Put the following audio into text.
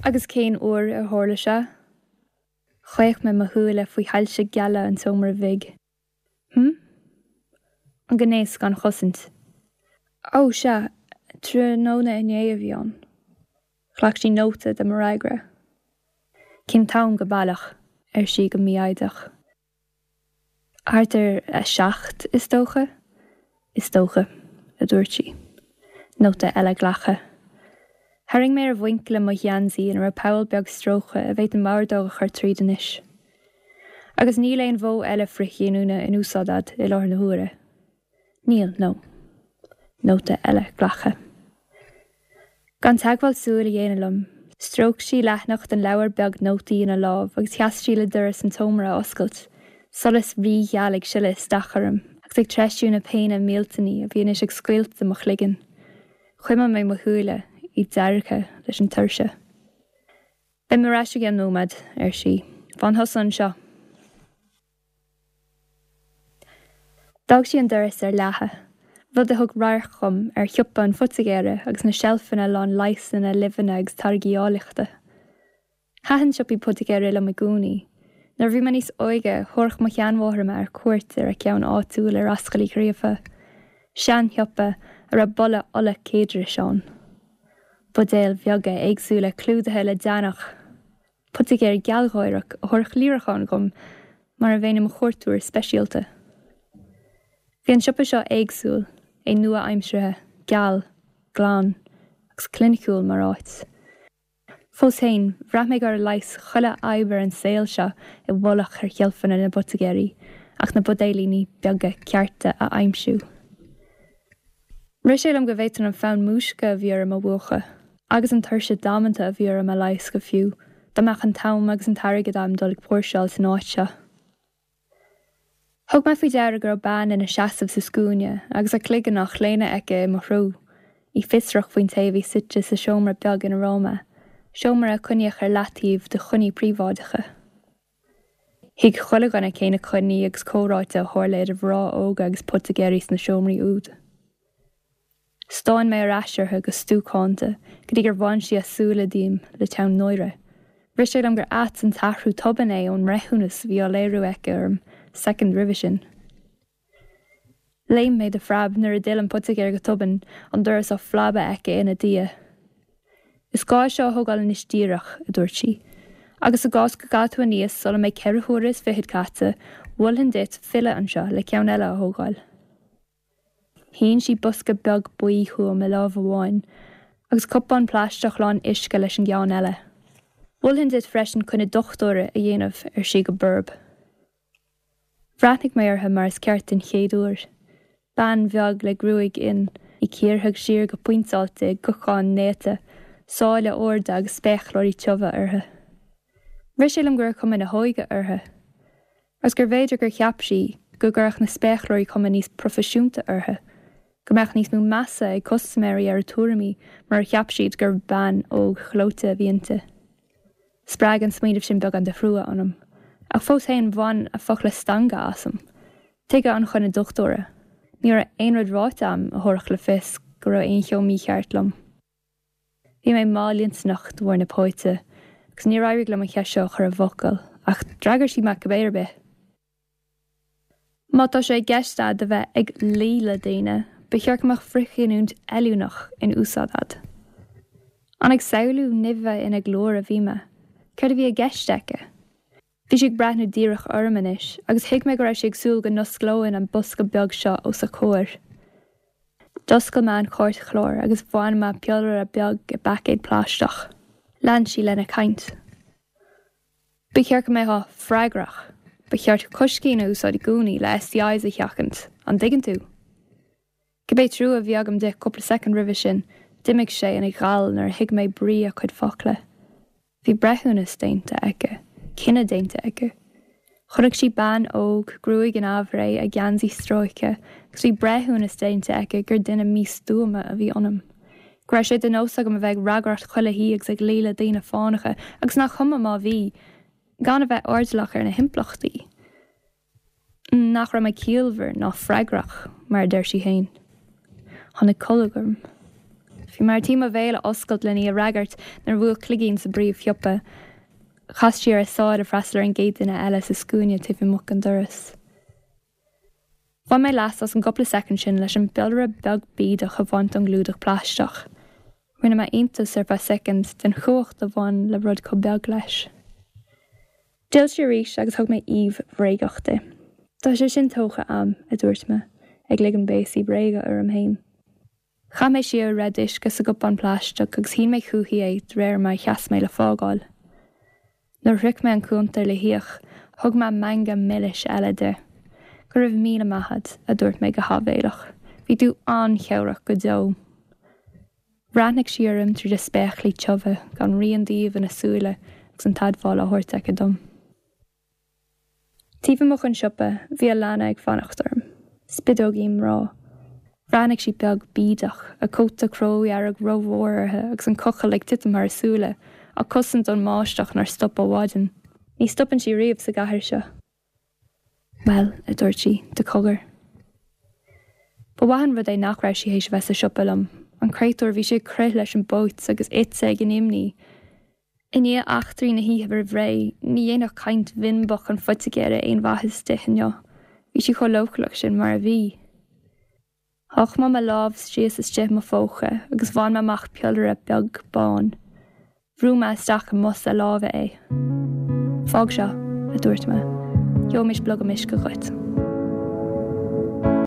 Agus cén uair a tharla sé? Chaoch mé mo shúile faoi shoilse geala an tseomra bhig. Hm? An gnéas gan chosaint. Ó, sea, tráthnóna inné a bhí ann. Ghlac sí nóta de mo fhreagra. Cén t-am go baileach? ar sí go mífhoighdeach. Thart ar a 7, is dócha. Is dócha, a dúirt sí. Nóta eile glactha. Tharraing mé ar mhuinchille mo gheansaí ina raibh poll beag stróicthe a bhféadfainn m'ordóg a chur tríd anois. Agus níl aon mhodh eile frithghiniúna in úsáid a'd i láthair na huaire? Níl, no. Nóta eile glactha. Gan teagmháil súl a dhéanamh liom, stróic sí leathanach den leabhar beag nótaí ina lámh agus sheas sí le doras an tseomra a oscailt, solas rígheal ag sileadh isteach orm agus ag treisiú na péine millteanaí a bhí anois ag scoilteadh mo chloigeann. Chuimil mé mo shúile, iad deargtha leis an tuirse. Beidh mé ar ais i gceann nóiméad, ar sí. Fan thusa anseo. D'fhág sí an doras ar leathadh, rud a thug radharc dhom ar shiopa an phoitigéara agus na seilfeanna lán leigheasanna, luibheanna agus táirgí áilleachta. Thaitin siopaí poitigéara liom i gcónaí. Nuair a bhí mé níos óige, thabharfadh mo sheanmháthair mé ar cuairt ar a ceann áitiúil ar Ascaill Uí Ghríofa, seanshiopa a raibh boladh ola céadrais ann. Buidéil bheaga éagsúla clúdaithe le deannach. Poitigéir gealgháireach a thabharfadh líreachán dhom mar a bheinn i mo chuairteoir speisialta. Bhí an siopa seo éagsúil, é nua-aimseartha, geal, glan agus cliniciúil mar áit. Fós féin, bhraith mé go raibh leigheas chuile fhadhb ar an saol seo i bhfolach ar sheilfeanna na bpoitigéirí ach na buidéilíní beaga cearta a aimsiú. Rith sé liom go bhféadfainn an fonn múisce a bhí orm a mhúchadh, agus an tuirse damanta a bhí orm a leigheas go fiú, dá mbeadh an t-am agus an t-airgead agam dul ag póirseáil san áit seo. Thug mé faoi deara go raibh bean ina seasamh sa scuaine agus a cloigeann á chlaonadh aici i mo threo, í fiosrach faoin té a bhí suite sa seomra beag ina raibh mé, seomra a coinníodh ar leataobh do choinní príobháideacha. Thuig chuile dhuine cé na coinní agus comhráite a tharla idir mhná óga agus poitigéirí sna seomraí úd. Stán mé ar ais uirthi go stuacánta go dtí gur bhain sí a súile díom le teann náire. Rith sé liom gur ait an t-athrú tobann é ón mbreithiúnas a bhí á léiriú aici orm soicind roimhe sin. Léim mé de phreab nuair a d'fhill an poitigéir go tobann, an doras á phlabadh aici ina diaidh. Is gá é seo a thógáil anois díreach, a dúirt sí. Agus i gcás go gcaithfidh tú aníos sula mbeidh 4 huaire is fichead caite, mholfainn duit filleadh anseo le ceann eile a thógáil. Shín sí bosca beag buí chugam i lámh amháin agus cupán plaisteach lán uisce leis an gceann eile. Mholfainn duit freisin coinne dochtúra a dhéanamh, ar sí go borb. Bhreathnaigh mé uirthi mar is ceart den chéad uair. Bean bheag le gruaig fhionn, í cíortha siar go pointeáilte i gcocán néata, sáile arda agus spéacláirí tiubha uirthi. Rith sé liom go raibh cuma na hóige uirthi. Agus gurbh fhéidir gur cheap sí go gcuirfeadh na spéacláirí cuma níos proifisiúnta uirthi, go mbeadh níos mó measa ag custaiméirí ar a tuairimí murar cheap siad gur bean óg ghleoite a bhí inti. Spreag an smaoineamh sin beagán de thrua ionam. Ach fós féin, bhain a focla stangadh asam. Tuige an choinne dochtúra? Ní raibh aon rud ráite a'm a thabharfadh le fios go raibh aon cheo mícheart liom. Bhí mé mallintinneach de bharr na póite, agus níor éirigh liom an cheist seo a chur i bhfocail, ach d'fhreagair sí mé cibé ar bith. Má tá sé i gceist a'd a bheith ag luí le daoine, ba cheart go mbeadh frithghiniúint fheiliúnach in úsáid a'd. An ag samhlú nimhe ina glór a bhí mé? Céard a bhí i gceist aici? Bhí sí ag breathnú díreach orm anois, agus thuig mé go raibh sí ag súil go n-osclóinn an bosca beag seo os a comhair. D'oscail mé an cairtchlár agus bhain mé piollaire beag i bpaicéad plaisteach. Lean sí lena caint. Ba cheart go mbeifeá freagrach. Ba cheart coiscín a úsáid i gcónaí le STIs a sheachaint, an dtuigeann tú? Cibé trua a bhí agam di cúpla soicind roimhe sin, d'imigh sé ina ghal nuair a thuig mé brí a cuid focla. Bhí breithiúnas déanta aici, cinneadh déanta aici. Chonaic sí bean óg, gruaig in aimhréidh, a geansaí stróicthe, agus bhí breithiúnas déanta aici gur duine místuama a bhí ionam. Go raibh sé de nós agam a bheith ag ragaireacht chuile thí agus ag luí le daoine fánacha, agus nach cuma má bhí, gan a bheith airdeallach ar na himpleachtaí. Nach raibh mé ciallmhar ná freagrach, mar a deir sí féin. Tháinig colg orm. Bhí mé ar tí mo bhéal a oscailt len í a fhreagairt nuair a bhuail cloigín sa bpríomhshiopa. Chas sí ar a sáil le freastal ar an gcéad duine eile sa scuaine taobh amuigh den doras. Bhain mé leas as an gcúpla soicind sin leis an bpiollaire beag bídeach a bhaint ón gclúdach plaisteach. Rinne mé iontas ar feadh soicind den chumhacht a bhain le rud chomh beag leis. D'fhill sí arís agus thug mé aoibh bhréagach di. Tá sé sin tógtha a'm, a dúirt mé, ag ligean béasaí bréige orm féin. Chaith mé siar a raibh d'uisce sa gcupán plaisteach agus shín mé chuici é de réir mar a sheas mé le fágáil. Nuair a shroich mé an cuntar le híoc, thug mé meangadh milis eile di. Go raibh míle maith a'd, a dúirt mé go háibhéileach. Bhí tú an-chabhrach go deo. Bhreathnaigh sí orm tríd a spéaclaí tiubha, gan rian d'aoibh ina súile agus an t-admháil á thabhairt aici dom. Taobh amuigh den siopa, bhí Alana ag fanacht orm. Spideoigín mná. Bhreathnaigh sí beag bídeach, a cóta cródhearg rómhór uirthi agus an cochall ag titim thar a súile, á cosaint ón mbáisteach nár stop ó mhaidin. Ní stopann sí riamh sa gcathair seo. Bhuel, a dúirt sí, de chogar. Ba mhaith an rud é nach raibh sí théis a bheith sa siopa liom. An créatúr, bhí sí ag crith leis an bpóit agus ite ag an imní. I ndiaidh eachtraí na hoíche roimh ré, ní dhéanfadh caint bhinbeach an phoitigéara aon mhaitheas di inniu. Bhí sí chomh leochaileach sin mar a bhí. Sháigh mé mo lámh síos istigh i mo phóca agus bhain mé amach piollaire beag bán. Bhrúigh mé isteach i mbos a láimhe é. Fág seo, a dúirt mé. Gheobhaimis blogam uisce dhuit.